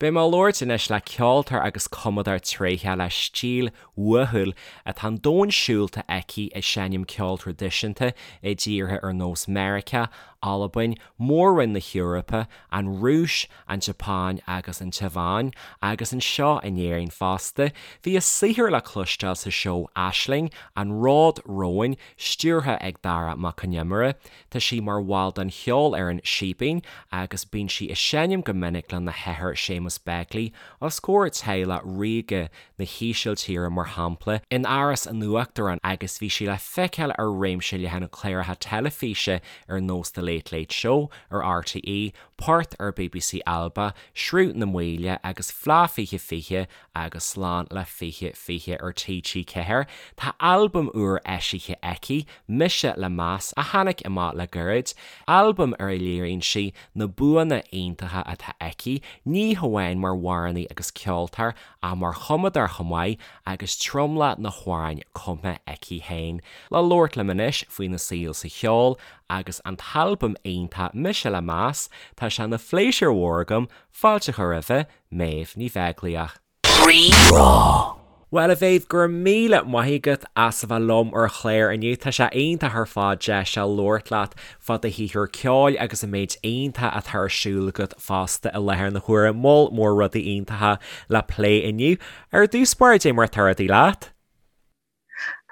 Beidh mé ag labhairt anois le ceoltóir agus cumadóir tréitheach le stíl uathúil atá an domhan siúlta aici ag seinm ceol traidisiúnta i dtíortha ar nós Meiriceá, Albain, Mór-Roinn na hEorpa, an Rúis, an tSeapáin agus an Téaváin, agus anseo in Éirinn fosta. Bhí a saothar le cloisteáil sa seó Aisling, An Ród Romhainn, stiúrtha ag Dara Mac Con Iomaire. Tá sí mar bhall den cheolfhoireann Síbín agus bíonn sí ag seinm go minic lena hathair Séamus Begley os comhair teaghlach ríoga na hÍsiltíre mar shampla in Áras an Uachtaráin agus bhí sí le feiceáil ar réimse leathan cláracha teilifíse ar nós The Late Late Show ar RTÉ, Port ar bbc Alba, Sruth na Maoile agus Fleadh 2020 agus Slán le 2020 ar TG4. Tá albam úr eisithe aici, Mise le Meas, a tháinig amach le gairid, albam ar a léiríonn sí na buanna iontacha atá aici, ní hamháin mar amhránaí agus ceoltóir ach mar chumadóir chomh maith agus tromlach na hamhráin cumtha aici féin. Le labhairt liom anois faoina saol sa cheol agus an t-albam iontach Mise le Meas, tá sé ina phléisiúr mhór agam fáilte a chur roimhe, Méabh Ní Bheaglaoich. Rí-Rá. Bhuel, a Mhéabh, go raibh míle maith agat as a bheith liom ar an chlár inniu. Tá sé iontach ar fad deis a labhairt leat fá do shaothar ceoil agus an méid iontach atá ar siúl agat fosta i láthair na huaire. Moll mór rudaí iontacha le plé inniu. Ar dtús báire, cad é mar atá rudaí leat?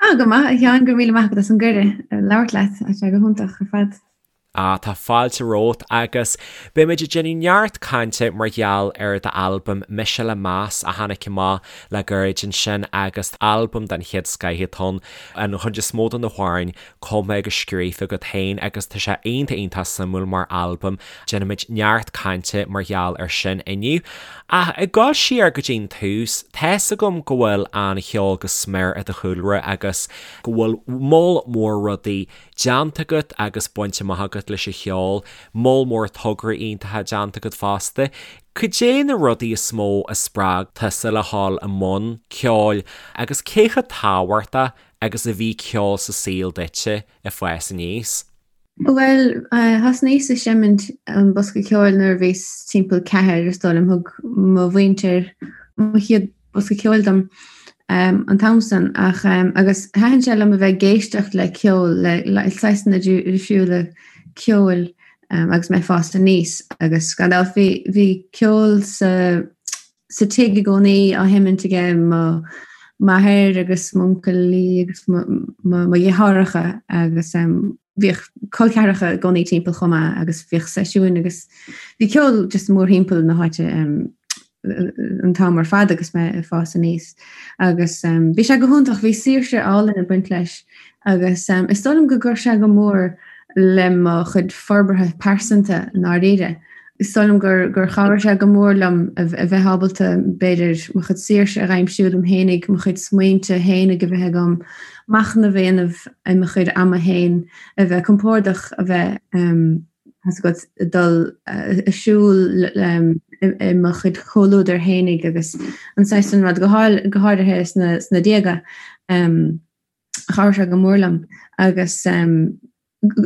Ah, go maith, a Sheáin, go raibh míle maith agat as an gcuireadh labhairt leat, tá sé go hiontach ar fad. Ah, tá fáilte romhat agus beimid ag déanamh neart cainte mar gheall ar d'albam Mise le Meas a tháinig amach le gairid ansin agus albam den chéad scoith atá ann, an chuid is mó de na hamhráin cumtha agus scríofa agat féin agus tá sé iontach iontach suimiúil mar albam. Déanfaimid neart cainte mar gheall ar sin inniu. Ach ag dul siar go dtí'n tús, tá's agam go bhfuil an cheol go smior i do chúlra agus go bhfuil moll mór rudaí déanta agat agus bainte amach agat leis an cheol, moll mór tograí iontacha déanta agat fosta. Cad é na rudaí is mó a spreag tusa le dhul i mbun ceoil agus cé chomh tábhachtach agus a bhí ceol sa saol duitse ag fás aníos? Bhuel, thosnaíos ag seimint an bosca ceoil nuair a bhíos timpeall ceathair, is dóigh liom. Thug mo mhuintir mo chéad bosca ceoil dom an t-am san ach agus thaitin sé liom a bheith ag éisteacht le ceol, le saghsanna difriúla ceoil agus mé ag fás aníos agus gan dabht bhí ceol sa sa tigh i gcónaí á sheimint aige mo m'athair agus m'uncailí agus mo dheartháireacha agus bhíodh col ceathracha i gcónaí timpeall chomh maith agus bhíodh seisiúin agus bhí ceol just mórthimpeall na háite an t-am ar fad agus mé ag fás aníos agus bhí sé go hiontach, bhí saoirse álainn ag baint leis agus is dóigh liom go gcuir sé go mór le mo chuid forbartha pearsanta i ndáiríre. Is dóigh liom gur gur chabhraigh sé go mór liom a bheith ábalta, b'fhéidir, mo chuid saoirse a dh'aimsiú dom fhéinig, mo chuid smaointe fhéinig a bheith agam, machnamh a dhéanamh i mo chuid ama fhéin, a bheith compordach, a bheith, tá's agat, ag dul ag siúl i mo chuid comhluadar fhéinig agus an saghas san rud, go háirithe sna déaga. Chabhraigh sé go mór liom agus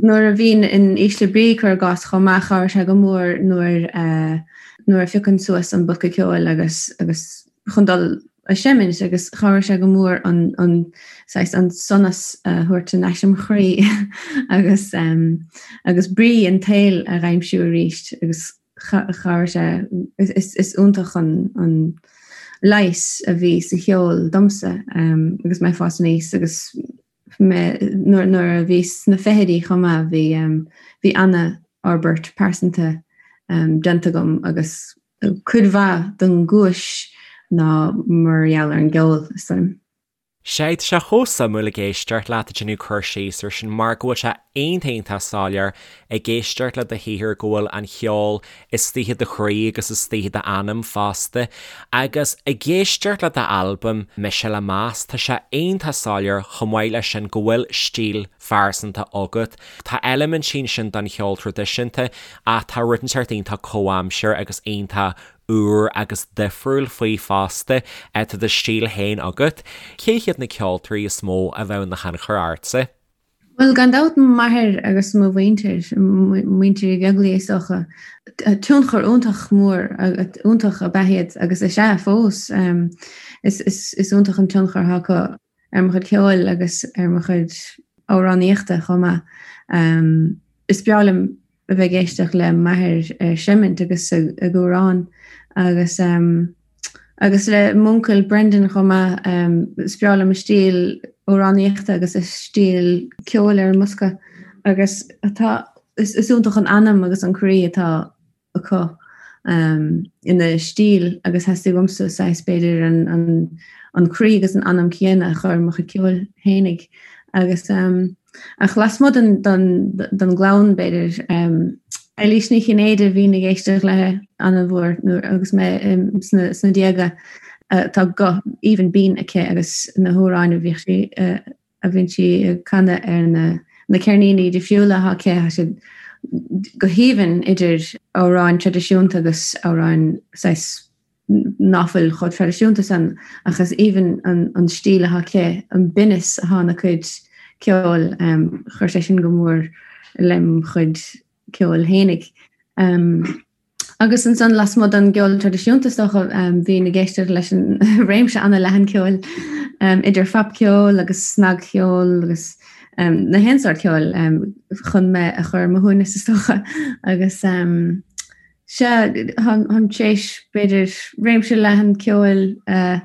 nuair a bhínn in ísle brí, cuir i gcás, chomh maith, chabhraigh sé go mór nuair nuair a phiocfainn suas an bosca ceoil agus agus chun dul a seimint agus chabhraigh sé go mór an an saghas an sonas a thabhairt in ais im chroí agus agus brí an tsaoil a dh'aimsiú arís agus chabhraigh sé is is iontach an an leigheas a bhí sa cheol domsa agus mé ag fás aníos agus mé nuair a bhíos sna fichidí chomh maith bhí bhí ana-fhorbairt pearsanta déanta agam agus cuid mhaith den gcúis ná mar gheall ar an gceol, is dóigh liom. Sea, tá sé chomh suimiúil ag éisteacht leat ag déanamh cur síos ar sin mar go bhfuil sé iontach iontach soiléir ag éisteacht le do shaothar go bhfuil an cheol istigh i do chroí agus istigh i d'anam fosta. Agus ag éisteacht le d'albam Mise le Meas, tá sé iontach soiléir chomh maith leis sin go bhfuil stíl phearsanta agat. Tá eilimintí ansin den cheol traidisiúnta ach tá rud inteacht iontach comhaimseartha agus iontach úr agus difriúil faoi fosta. Tá do stíl féin agat. Cé hiad na ceoltóirí is mó a bheadh ina thionchar ortsa? Bhuel, gan dabht m'athair agus mo mhuintir, muintir Uí Bheaglaoich is dócha. Tionchar iontach mór, iontach ab ea iad agus is ea fós. Is iontach an tionchar atá acu ar mo chuid ceoil agus ar mo chuid amhránaíochta chomh maith. Is breá liom a bheith ag éisteacht le m'athair ag seimint agus ag amhrán agus agus le m'uncail Brendan chomh maith. Is breá liom a stíl amhránaíochta agus a stíl ceoil ar an mbosca agus tá is iontach an anam agus an croí atá acu ina stíl agus theastaigh uaimse saghas b'fhéidir an an croí agus an anam céanna a chur i mo chuid ceoil fhéinig agus ach lasmuigh den den den gclann b'fhéidir Eilís Ní Chinnéide bhínn ag éisteacht léi an-mhór nuair agus mé sna sna déaga tá guth aoibhinn binn aici agus na hamhráin a bhíodh sí a bhíonn sí ag canadh ar na na ceirníní difriúla atá aici, tá siad go haoibhinn idir amhráin traidisiúnta agus amhráin saghas ná fuil chomh traidisiúnta san ach is aoibhinn an an stíl atá aici, an binneas atá ina cuid ceoil, chuir sé sin go mór lem chuid ceoil fhéinig. Agus ansan lasmuigh den gceol traidisiúnta is dócha, bhínn ag éisteacht leis an réimse an-leathan ceoil, idir phopcheol agus snagcheol agus na haon sórt ceoil chun mé a chur ar mo shuaimhneas is dócha. Agus sea, táim tar éis b'fhéidir réimse leathan ceoil a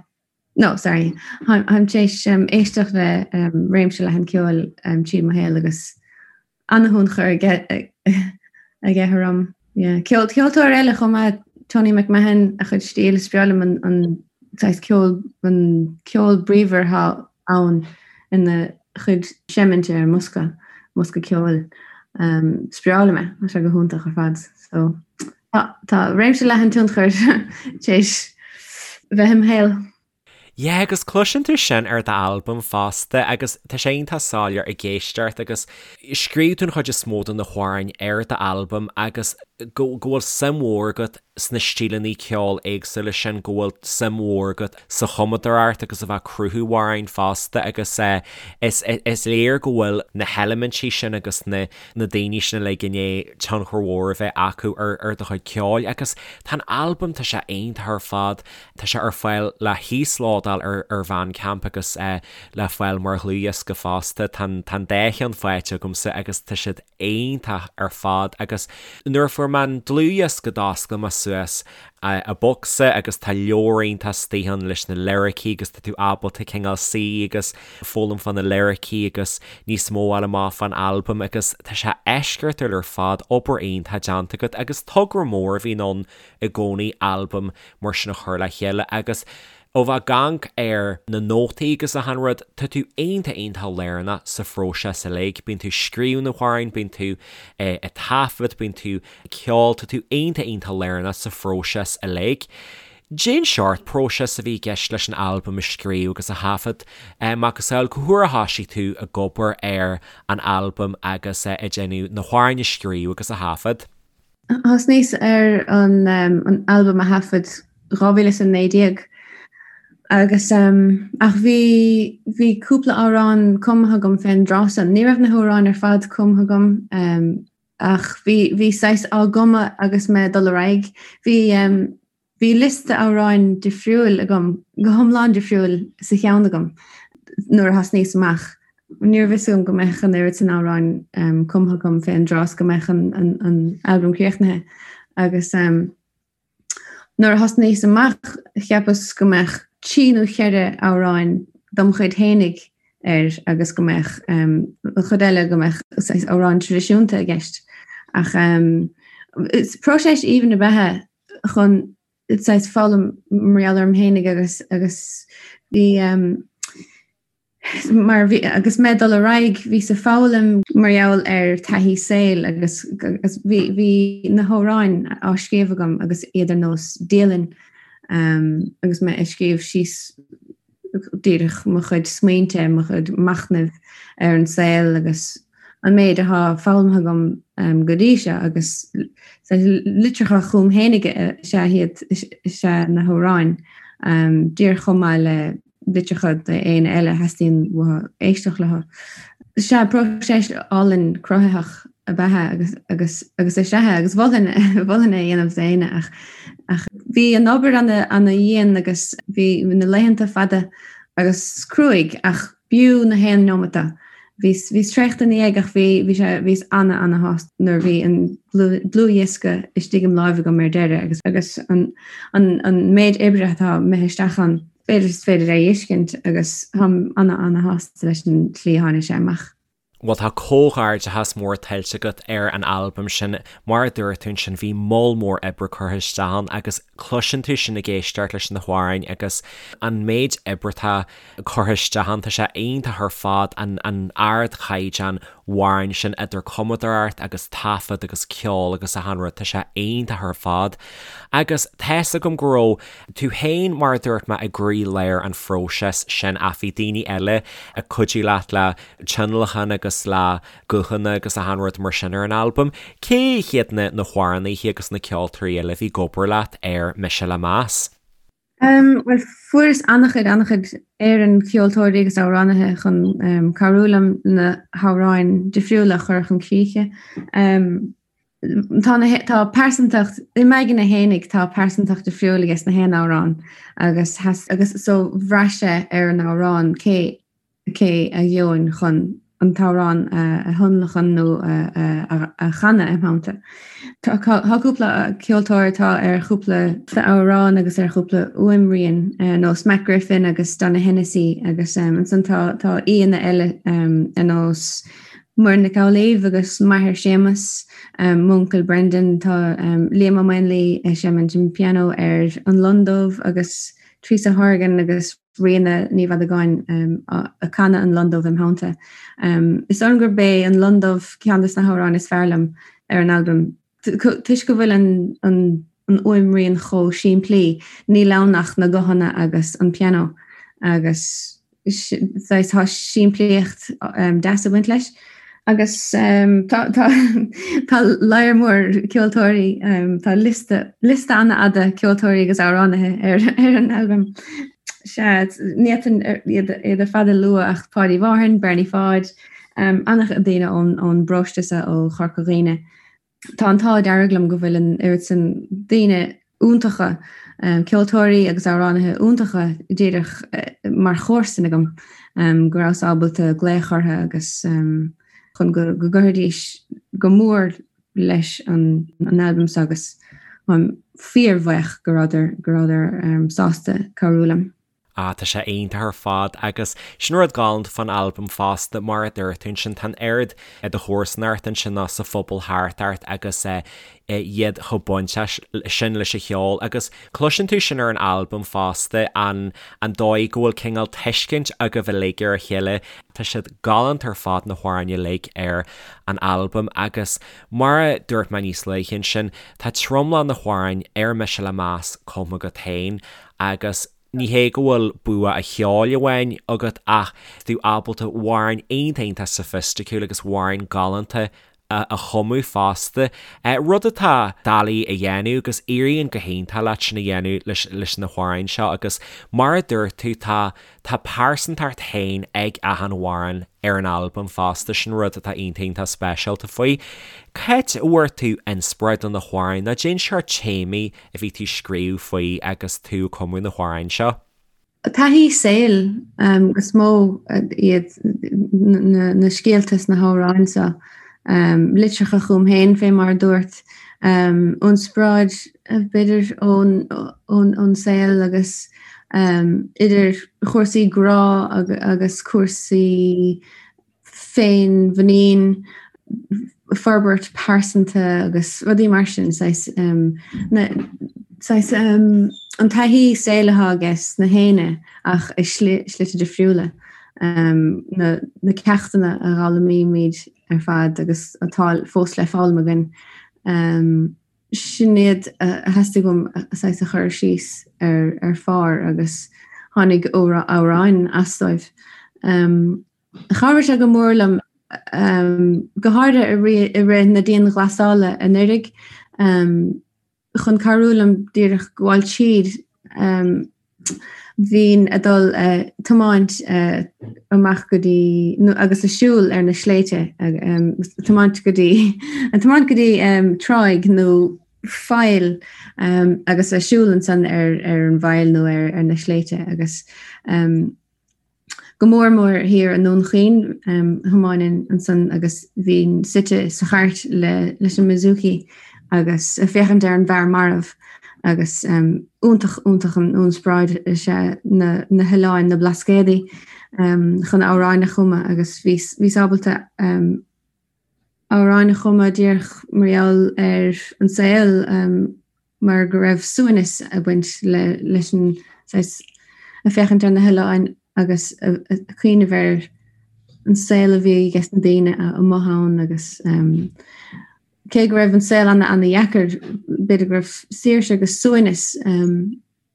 No, sorry. Táim tar éis éisteacht le réimse leathan ceoil tríd mo shaol agus an-thionchar aige aige orm. Yeah. Ceol, ceoltóir eile chomh maith, Tony McMahon, a chuid stíl, is breá liom an, an saghas ceol, an ceol bríomhar atá ann ina chuid seiminte ar an mbosca, mbosca ceoil. Um, is breá liom é, tá sé go hiontach ar fad. So, Tá, tá réimse leathan tionchair tar éis bheith im shaol. Yeah, agus cloiseann tú sin ar d'albam fosta agus tá sé iontach soiléir ag éisteacht agus scríobh tú an chuid is mó de na hamhráin ar d'albam agus go go bhfuil suim mhór agat sna stíleanna ceoil éagsúla sin, go bhfuil suim mhór agat sa chumadóireacht agus a bheith ag cruthú amhráin fosta agus eh is is léir go bhfuil na heilimintí sin agus na na daoine sin uilig i ndiaidh tionchar mhór a bheith acu ar ar do chuid ceoil agus tá an albam, tá sé iontach ar fad, tá sé ar fáil le híoslódáil ar ar Bandcamp agus le fáil mar dhlúthdhiosca fosta, tá an tá an dá cheann faighte agamsa agus tá siad iontach ar fad agus nuair a fuair mé an dlúthdhiosca d'oscail mé suas an bocsa agus tá leabhar iontach istigh ann leis na liricí agus tá tú ábalta cineál suí agus foghlaim fá na liricí agus níos mó a fháil amach fán albam agus tá sé eisceachtúil ar fad, obair iontach déanta agat agus togra mór a bhíonn ann i gcónaí albam mar sin a chur le chéile agus ó bheith ag amharc ar na nótaí agus achan rud, tá tú iontach iontach lárnach sa phróiseas uilig, bíonn tú ag scríobh na hamhráin, bíonn tú ag taifead, bíonn tú ag ceol, tá tú iontach iontach lárnach sa phróiseas uilig. Cén seort próiseas a bhí i gceist leis an albam a scríobh agus a thaifead, macasamhail cá huair a thoisigh tú ag obair ar an albam agus ag déanamh na hamhráin a scríobh agus a thaifead? Thosnaíos ar an albam a thaifead 2019 agus ach bhí bhí cúpla amhrán cumtha agam fén dtráth san. Ní raibh na hamhráin ar fad cumtha agam ach bhí bhí saghas á gcumadh agus mé ag dul ar aghaidh. Bhí Bhí liosta amhráin difriúil agam, go hiomlán difriúil sa cheann agam nuair a thosnaíos amach. Ní raibh fhios agam go mbeadh an oiread san amhráin cumtha agam fén dtráth is go mbeadh an albam críochnaithe. Agus nuair a thosnaíos amach cheapas go mbeadh trí nó cheithre amhráin dom chuid fhéinig air agus go mbeadh an chuid eile go mbeadh saghas amhráin traidisiúnta i gceist. Ach is próiseas aoibhinn ab ea é chun saghas foghlaim mar gheall orm fhéinig agus agus bhí mar bhí agus mé ag dul ar aghaidh bhíos ag foghlaim mar gheall ar taithí saoil agus agus bhí bhí na hamhráin á scríobh agam agus iad ar nós dialann agus mé ag scríobh síos díreach mo chuid smaointe, mo chuid machnaimh ar an saol agus an méid atá foghlamtha agam go dtí seo agus litreacha chugam fhéinig is ea iad is ea na hamhráin, díreach chomh maith le litreacha d'éinne eile a theastaíonn uathu éisteacht leo. Sea, próiseas álainn cruthaitheach ab ea é agus agus agus is ea é agus mholfainn mholfainn é a dhéanamh d'éinne ach ach bhí an obair ana ana dhian agus bhí na laethanta fada agus cruaidh ach b'fhiú na haon neomat é. Bhíos bhíos traochta ina dhiaidh ach bhí bhí sé bhíos ana ana shásta nuair a bhí an dlúthdhiosca istigh im láimh agam ar deireadh agus agus an an an méid oibre atá imithe isteach ann. B'fhéidir is féidir é a fheiscint agus táim ana ana shásta leis an tslí a tháinig sé amach. Bhuel tá comhghairdeachas mór tuillte agat ar an albam sin. Mar a dúirt tú ansin bhí moll mór oibre curtha isteach ann agus cloiseann tú sin ag éisteacht leis na hamhráin agus an méid oibre atá curtha isteach ann. Tá sé iontach ar fad an an ardchaighdeán amhráin sin idir cumadóireacht agus taifead agus ceol agus achan rud, tá sé iontach ar fad. Agus tá's agam go raibh tú féin, mar a dúirt mé, i gcroí-lár an phróisis sin ach bhí daoine eile ag cuidiú leat le tionlacan agus le guthanna agus achan rud mar sin ar an albam. Cé hiad na na hamhránaithe agus na ceoltóirí eile a bhí ag obair leat ar Mise le Meas? Bhuel, fuaireas an-chuid, an-chuid foireann ceoltóirí agus amhránaithe chun cabhrú liom na hamhráin difriúla a chur chun críche. Tá na, tá pearsantacht, i m'aigne fhéinig tá pearsantacht difriúil aige sna haon amhrán agus, agus so bhraith sé ar an amhrán cé cé a gheobhainn chun an t-amhrán a thionlacan nó a chanadh im theannta. Tá cúpla ceoltóir atá ar chúpla amhrán agus ar chúpla fuaimrian, ar nós Matt Griffin agus Donogh Hennessy agus ansan tá aíonna eile ar nós Muireann Nic Amhlaoibh agus m'athair Séamus, m'uncail Brendan, tá Liam Ó Maonlaí ag seimint an pianó ar An Lon Dubh agus Teresa Horgan agus Ríona Ní Mhadagáin ag canadh An Lon Dubh im theannta. Is dóigh liom gurb é An Lon Dubh ceann de na hamhráin is fearr liom ar an albam. Toisc go bhfuil an fhuaimrian chomh simplí, níl ann ach na guthanna agus an pianó agus saghas tá simplíocht deas ag baint leis. Agus tá tá lear mór ceoltóirí, tá liosta liosta an-fhada ceoltóirí agus amhránaithe ar ar an albam. Sea, ní fhéadfainn iad iad ar fad a lua ach Páidí Mhárthain, Bernie Pháid, an-chuid daoine ón ón bparóiste seo ó Chorca Dhuibhne. Tá an t-ádh dearg liom go bhfuil an oiread sin daoine iontacha, ceoltóirí agus amhránaithe iontacha díreach mar chomharsain agam, go rabhas ábalta glaoch orthu agus chun go gcuirfidís go mór leis an albam seo agus táim fíorbhuíoch go rabhadar go rabhadar sásta cabhrú liom. Ah, tá sé iontach ar fad agus sin rud galánta fán albam fosta, mar a dúirt tú ansin, tá an oiread i do chomharsanacht ansin ná sa phobal thart ort agus iad chomh bainteach sin leis an cheol agus cloiseann tú sin ar an albam fosta, an an dóigh go bhfuil cineál tuiscint agaibh uilig ar a chéile. Tá siad galánta ar fad na hamhráin uilig ar an albam agus mar a dúirt mé níos luaithe ansin, tá tromlach na hamhráin ar Mise le Meas cumtha agat féin agus ní hé go bhfuil bua an cheoil amháin agat ach tú ábalta amhráin iontach iontach soifisticiúil agus amhráin galánta a chumadh fosta. Rud atá doiligh a dhéanamh agus éiríonn go hiontach leat sin a dhéanamh leis leis na hamhráin seo agus mar a dúirt tú tá tá pearsantacht féin ag achan amhrán ar an albam fosta, sin rud atá iontach iontach speisialta faoi. Cá háit a bhfuair tú inspioráid do na hamhráin nó cén sórt téamaí a bhí tú ag scríobh faoi agus tú ag cumadh na hamhráin seo? Taithí saoil is mó iad na scéalta sna hamhráin seo. Litreacha chugam féin, fé mar a dúirt. Inspioráid, b'fhéidir, ón saol agus idir chúrsaí grá agus cúrsaí féinmhuinín, forbairt pearsanta agus rudaí mar sin, saghas, saghas an taithí saoil atá ages na héinne ach i slite difriúla, na na ceachtanna a dh'fhoghlaimímid ar fad agus atá fós le foghlaim againn. Sin iad a theastaigh uaim saghas a chur síos ar ar phár agus tháinig amhráin as dóibh. Chabhraigh sé go mór liom, go háirithe i rith na dianghlasála anuraidh, chun cabhrú liom díreach gabháil tríd. Bhínn a' dul a' tiomáint amach go dtí, nó agus a' siúl ar na sléibhte, tiomáint go dtí, a' tiomáint go dtí tráigh nó faill agus a' siúl ansan ar ar an bhfaill nó ar ar na sléibhte agus Go mór mór thiar i nDún Chaoin, thiomáininn ansan agus bhínn suite sa chairt leis an mbouzouki agus ag féachaint ar an bhfear marbh agus iontach, iontach an ionspráid is ea na hoileáin, na Blascaodaí, chun amhráin a chumadh agus bhíos ábalta amhráin a chumadh díreach mar gheall ar an saol mar go raibh suaimhneas ag baint leis an saghas ag féachaint ar na hoileáin agus ag cuimhneamh ar an saol a bhí ages na daoine amuigh ann agus cé go raibh an saol ana ana dheacair b'fhéidir go raibh saoirse agus suaimhneas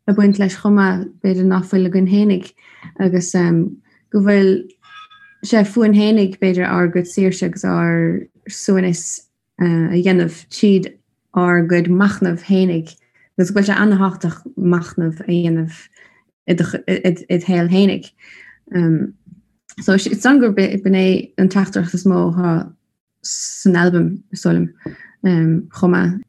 ag baint leis chomh maith, b'fhéidir ná fuil againn fhéinig agus go bhfuil sé fúinn fhéinig b'fhéidir ár gcuid saoirse agus ár suaimhneas a dhéanamh tríd ár gcuid machnaimh fhéinig agus go bhfuil sé ana-thábhachtach machnamh a dhéanamh i do shaol fhéinig. So is dóigh liom gurb in é an teachtaireacht is mó atá san albam, is dóigh liom, chomh maith.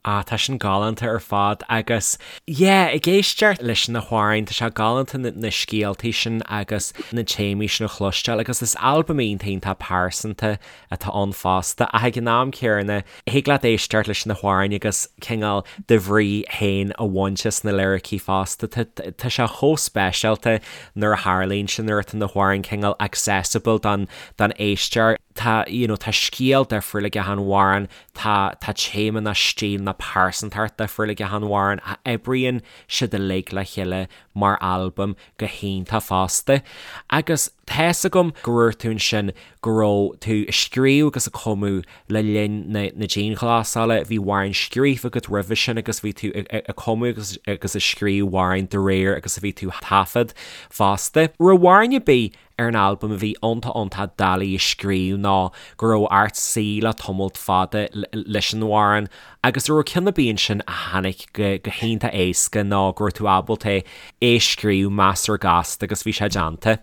Ah, tá sin galánta ar fad agus yeah, ag éisteacht leis na hamhráin, tá sé galánta na, na scéaltaí sin agus na téamaí sin a chloisteáil agus is albam iontach iontach pearsanta atá ann fosta ach ag an am céanna thig leat éisteacht leis na hamhráin agus cineál do bhrí féin a bhaint as na liricí fosta. Tá, tá sé chomh speisialta nuair a tharlaíonn sin, nuair atá na hamhráin cineál accessible don, don éisteoir. Tá, you know, tá scéal difriúil ag achan amhrán, tá, tá téama nó stíl nó pearsantacht difriúil ag achan amhrán ach oibríonn siad uilig le chéile mar albam go hiontach fosta. Agus tá's agam go ndúirt tú ansin go raibh tú ag scríobh agus ag cumadh le linn na, na dianghlasála, bhí amhráin scríofa agat roimhe sin agus bhí tú ag, ag cumadh agus, agus ag scríobh amhráin de réir agus a bhí tú taifead fosta. Raibh amhrán ar bith ar an albam a bhí iontach iontach doiligh a scríobh nó go raibh ort suí le tamalt fada leis an amhrán agus an raibh ceann ar bith ansin a tháinig go hiontach éasca nó go raibh tú ábalta é a scríobh measartha gasta agus bhí sé déanta?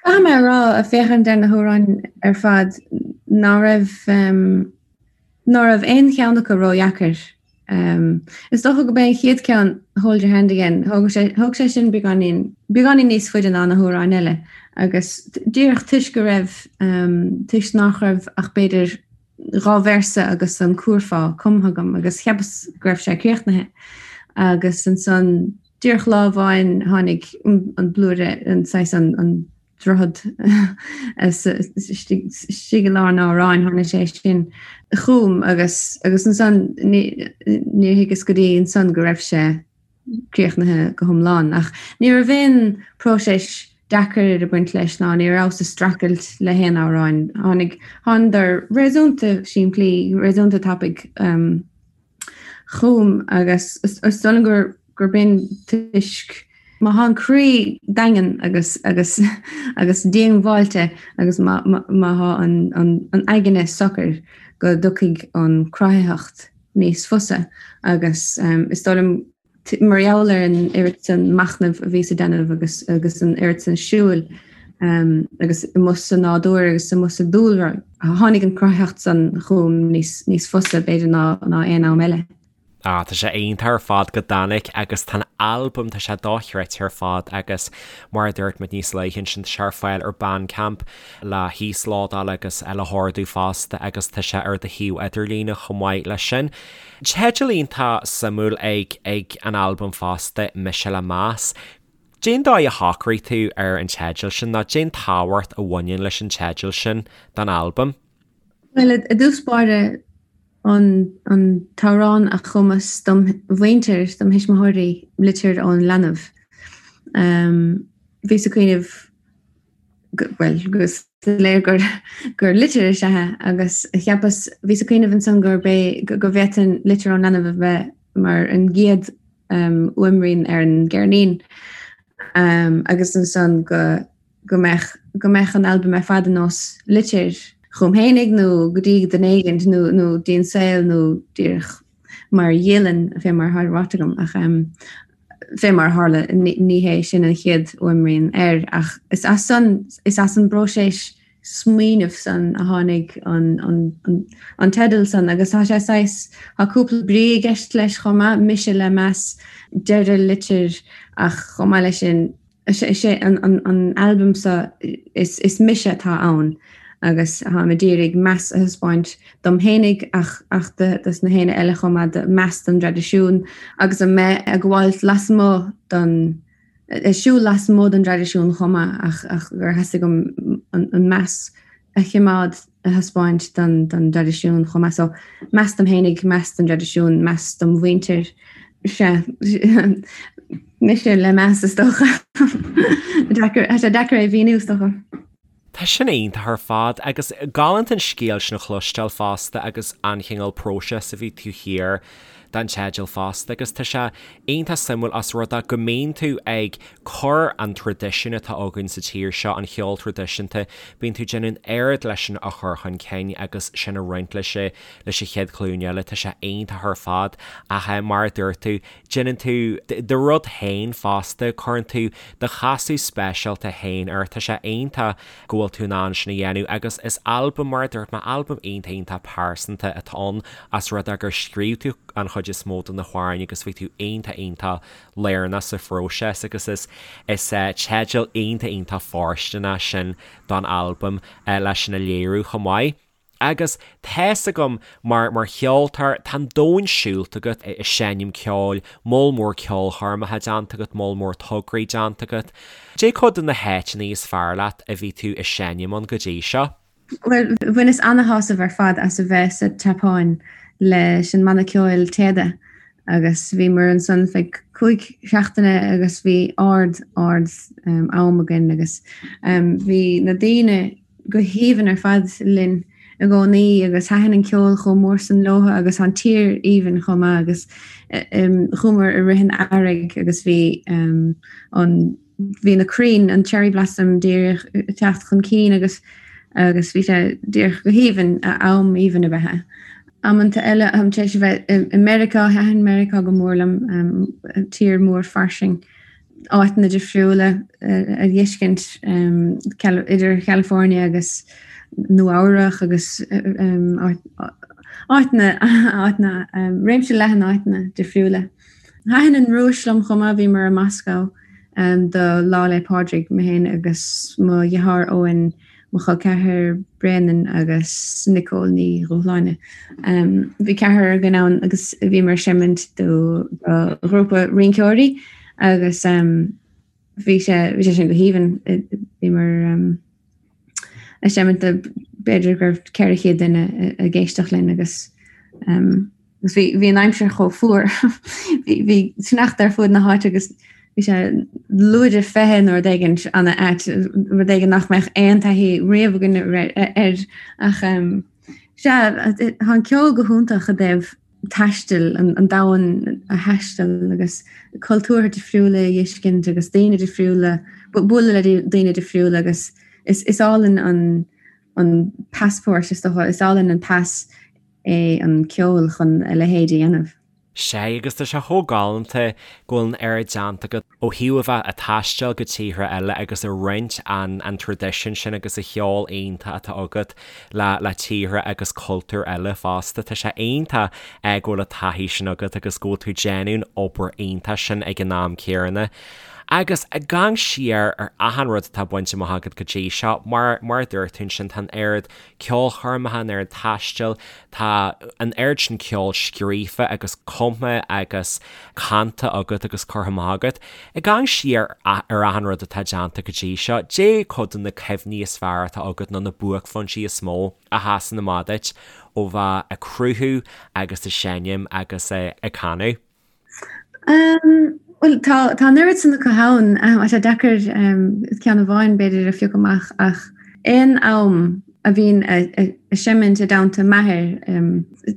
Caithfidh mé a rá, ag féachaint ar na hamhráin ar fad, ná raibh ná raibh aon cheann acu ródheacair. Is dócha gurb é an chéad ceann, Hold Your Hand Again, thóg sé, thóg sé sin beagáinín, beagáinín níos faide ná na hamhráin eile agus díreach toisc go raibh, toisc nach raibh ach b'fhéidir dhá véarsa agus an cúrfá cumtha agam agus cheapas go raibh sé críochnaithe agus ansan díreach lá amháin tháinig an blúire, an saghas an, an droichead istigh i lár an amhráin, tháinig sé sin chugam agus agus ansan níor thuigeas go dtí ansan go raibh sé críochnaithe go hiomlán. Ach ní raibh aon próiseas deacair ag baint leis ná ní rabhas ag streachailt le haon amhráin. Tháinig, thánadar réasúnta simplí, réasúnta tapaidh. Chugam agus is dóigh liom gur gurb in toisc má thá an croí daingean agus agus agus díongbháilte agus má má thá an an an aigne socair go dtiocfaidh an cruthaitheacht níos fusa agus is dóigh liom mar gheall ar an oiread san machnaimh a bhíos a déanamh agus agus an oiread san siúil agus amuigh sa nádúr agus amuigh sa dúlra, tháinig an cruthaitheacht san chugam níos níos fusa b'fhéidir ná ná aon am eile. Ah, tá sé iontach ar fad go dtáinig agus tá an albam, tá sé dochreidte ar fad agus mar a dúirt muid níos luaithe ansin, tá sé ar fáil ar Bandcamp le híoslódáil agus le hordú fosta agus tá sé ar do shuíomh idirlíne chomh maith leis sin. Teideal iontach suimiúil ag ag an albam fosta, Mise le Meas. Cén dóigh a shocraigh tú ar an teideal sin nó cén tábhacht a bhaineann leis an teideal sin don albam? Bhuel, i dtús báire, an an t-amhrán a chumas dom mhuintir, dom thuismitheoirí, Litir ón Leanbh. Bhíos ag cuimhneamh bhuel, go soiléir gur gur litir is ea é agus cheapas, bhíos ag cuimhneamh ansan gurb é, go bhféadfainn Litir ón Leanbh a bheith mar an gcéad fhuaimrian ar an gceirnín agus ansan go go mbeadh go mbeadh an albam ar fad ar nós litir chugam fhéinig nó go dtí duine éigint nó nó dtí an saol nó díreach mar dhialann fé mar atá ráite agam ach. Fé mar a tharla, ní hé sin an chéad fhuaimrian air, ach is as san, is as an bpróiseas smaoinimh san a tháinig an teideal san agus tá sé saghas, tá cúpla brí i gceist leis chomh maith, mise le meas, deireadh litir ach chomh maith leis sin, is é an albam seo, is mise atá ann agus táim ag iarraidh meas a thaispeáint dom fhéinig ach ach dos na héinne eile chomh maith, meas don dtraidisiún agus a mbeith ag gabháilt lasmuigh don ag siúl lasmuigh den dtraidisiún chomh maith ach ach gur theastaigh uaim an meas a chimeád a thaispeáint don don dtraidisiún chomh maith. So meas dom fhéinig, meas don dtraidisiún, meas dom mhuintir. Sea, mise le meas is dócha. Deacair, tá sé deacair é a mhíniú is dócha. Tá sin iontach ar fad agus galánta an scéal sin a chloisteáil fosta agus an chineál próiseas a bhí taobh thiar den teideal fosta agus tá sé iontach suimiúil os rud é go mbíonn tú ag cur an traidisiún atá againn sa tír seo, an cheol traidisiúnta, bíonn tú ag déanamh an oiread leis sin a chur chun cinn agus sin a roinnt leis leis an chéad ghlúin eile, tá sé iontach ar fad ach mar a dúirt tú, Déanann tú do rud féin fosta, cuireann tú do chasadh speisialta féin air, tá sé iontach go bhfuil tú in ann sin a dhéanamh agus is albam, mar a dúirt mé, albam iontach iontach pearsanta atá ann os rud é gur scríobh tú an chuid is mó de na hamhráin agus bhí tú iontach iontach lárnach sa phróiseas agus is is teideal iontach iontach fóirsteanach sin don albam leis sin a léiriú chomh maith. Agus tá's agam, mar, mar cheoltóir, tá an domhan siúlta agat ag seinm ceoil, moll mór ceolchoirmeacha déanta agat, moll mór tograí déanta agat. Cad é cuid de na háiteanna is fearr leat a bhí tú ag seinm ann go dtí seo? Bhuel, bhaineas ana-shásamh ar fad as a bheith sa tSeapáin leis an mbanna ceoil Téada agus bhíomar ansan feadh 5 seachtaine agus bhí ard, ard am againn agus bhí na daoine, go haoibhinn ar fad linn i gcónaí agus thaitin an ceol chomh mór san leotha agus tá an tír aoibhinn chomh maith agus chuamar i rith an earraigh agus bhí an bhí na crainn an cherry blossom díreach ag teacht chun cinn agus agus bhí sé díreach go haoibhinn, am aoibhinn ab ea é. Amanta eile táim tar éis a bheith i Meiriceá, thaitin Meiriceá go mór liom, tír mór fairsing. áiteanna difriúla a dh'fheiscint idir Chalifornia agus Nua Eabhrach agus áiteanna, áiteanna, réimse leathan áiteanna difriúla. Thaitin an Rúis liom chomh maith, bhíomar i Moscow do Lá 'le Pádraig, mé féin agus mo dheartháir Eoin, mo chol ceathar Bréanainn agus Nicole Ní Dhúshláine. Bhí ceathrar againn ann agus bhíomar ag seimint do ghrúpa rinceoirí agus bhí sé bhí sé sin go haoibhinn. Bhíomar ag seimint do b'fhéidir go raibh 400 duine ag éisteacht linn agus Agus bhí, bhí an aimsir chomh fuar. Bhí, bhí sneachta ar fuaid na háite agus bhí sé lúide 20 nó rud éigin an-ait, rud éigin nach mbeadh aon taithí riamh againn air. Ach sea, tá an ceol go hiontach i dtaobh taistil, an, an domhan a thaisteal agus cultúrtha difriúla a dh'fheiscint agus daoine difriúla, bualadh le daoine difriúla agus is, is álainn an, an passport is dócha, is álainn an pas é an ceol chun a leithéid a dhéanamh. Sea, agus tá sé chomh galánta go bhfuil an oiread déanta agat ó thaobh a bheith ag taisteal go tíortha eile agus ag roinnt an an traidisiún sin agus an cheol iontach atá agat le le tíortha agus cultúir eile fosta. Tá sé iontach go bhfuil an taithí sin agat agus go bhfuil tú ag déanamh an obair iontach sin ag an am céanna. Agus ag amharc siar ar achan rud atá bainte amach agat go dtí seo, mar mar a dúirt tú ansin, tá an oiread ceolchoirmeacha, an oiread taistil, tá an oiread sin ceoil scríofa agus cumtha agus canta agat agus curtha amach agat. Ag amharc siar ar achan rud atá déanta go dtí seo, cad é cuid de na cuimhní is fearr atá agat nó na buaicphointí is mó a sheasann amach duit ó bheith ag cruthú agus ag seinm agus ag canadh? Bhuel, tá tá an oiread san acu ann, tá sé deacair ceann amháin b'fhéidir a phiocadh amach ach aon am a bhínn ag seimint i dteannta m'athair,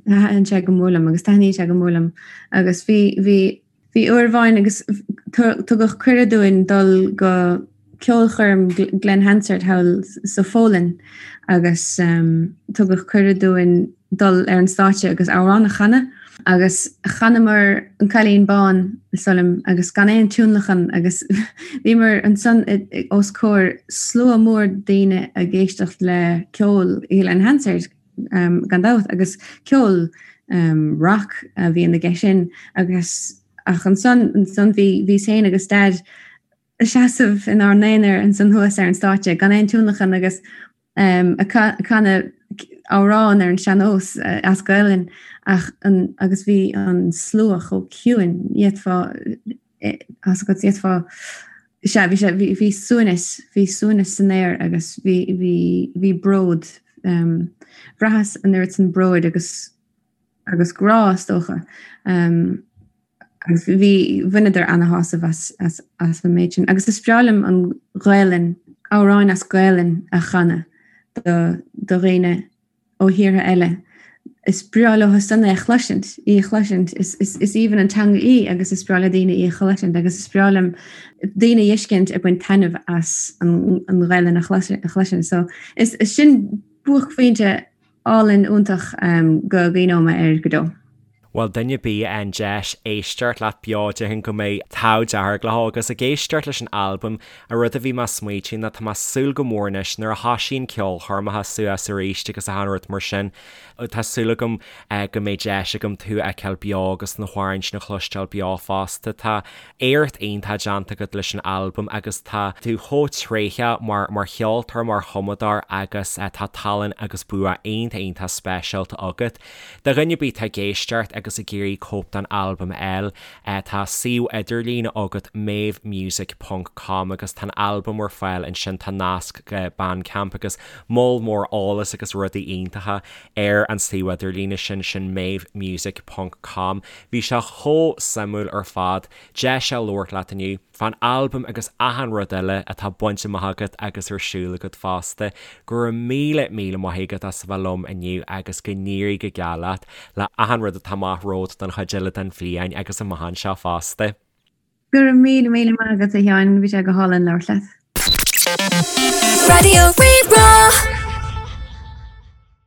thaitin sé go mór liom agus taitníonn sé go mór liom agus bhí bhí bhí uair amháin agus tugadh cuireadh dúinn dul go ceolchoirm Glen Hansard thall sa Pholainn agus tugadh cuireadh dúinn dul ar an stáitse agus amhrán a chanadh. Agus chanamar An Cailín Bán, is dóigh liom, agus gan aon tionlacan agus bhíomar ansan os comhair slua mór daoine ag éisteacht le ceol Glen Hansard, gan dabht, agus ceol rock a bhíonn aige sin agus ach ansan, ansan bhí, bhíos féin agus Daid ag seasamh inár n-aonar ansan thuas ar an stáitse gan aon tionlacan agus ag canadh amhrán ar an sean-nós as Gaelainn ach an agus bhí an slua chomh ciúin, d'fhéadfá tá 's agat d'fhéadfá sea bhí sé bhí bhí suaimhneas bhí suaimhneas san aer agus bhí bhí bhí bród bhraitheas an oiread san bróid agus agus grá is dócha. Agus bhí, bhaineadar ana-shásamh as, as, as an méid sin. Agus is breá liom an Ghaelainn, amhráin as Gaelainn a chanadh do, do dhaoine ó thíortha eile. Is breá leo san é a chloisint, í a chloisint. Is, is, is aoibhinn an teanga í agus is breá le daoine í a chloisint agus is breá liom daoine a fheiscint ag baint taitneamh as an, an Ghaelainn a chloisint. So is, is sin buaicphointe álainn iontach go gcuimhneoidh mé air go deo. Bhuel, duine ar bith a fhaigheann deis éisteacht leat beo, déarfainn go mbeidh an t-ádh dearg leo agus ag éisteacht leis an albam, an rud a bhí mé ag smaoitiú ná tá mé ag súil go mór anois nuair a thosaíonn ceolchoirmeacha suas arís agus achan rud mar sin, tá súil agam go mbeidh deis agam tú a fheiceáil beo agus na hamhráin sin a chloisteáil beo fosta. Tá éacht iontach déanta agat leis an albam agus tá tú chomh tréitheach mar mar cheoltóir, mar chumadóir agus tá tallann agus bua iontach iontach speisialta agat. Do dhuine ar bith atá ag éisteacht agus ag iarraidh cóip den albam a fháil, tá suíomh idirlín agat maevemusic ponc com agus tá an albam ar fáil ansin, tá nasc go Bandcamp agus moll mór eolas agus rudaí iontacha ar an suíomh idirlíne sin, sin maevemusic ponc com. Bhí sé chomh suimiúil ar fad deis a labhairt leat inniu fán albam agus achan rud eile atá bainte amach agat agus ar siúl agat fosta. Go raibh míle míle maith agat as a bheith liom inniu agus go n-éirí go geal leat le achan rud atá amach romhat don chuid eile den bhliain agus amach anseo fosta. Go raibh míle míle maith agat a Sheáin, bhí sé go hálainn labhairt leat. Raidió Rí-Rá.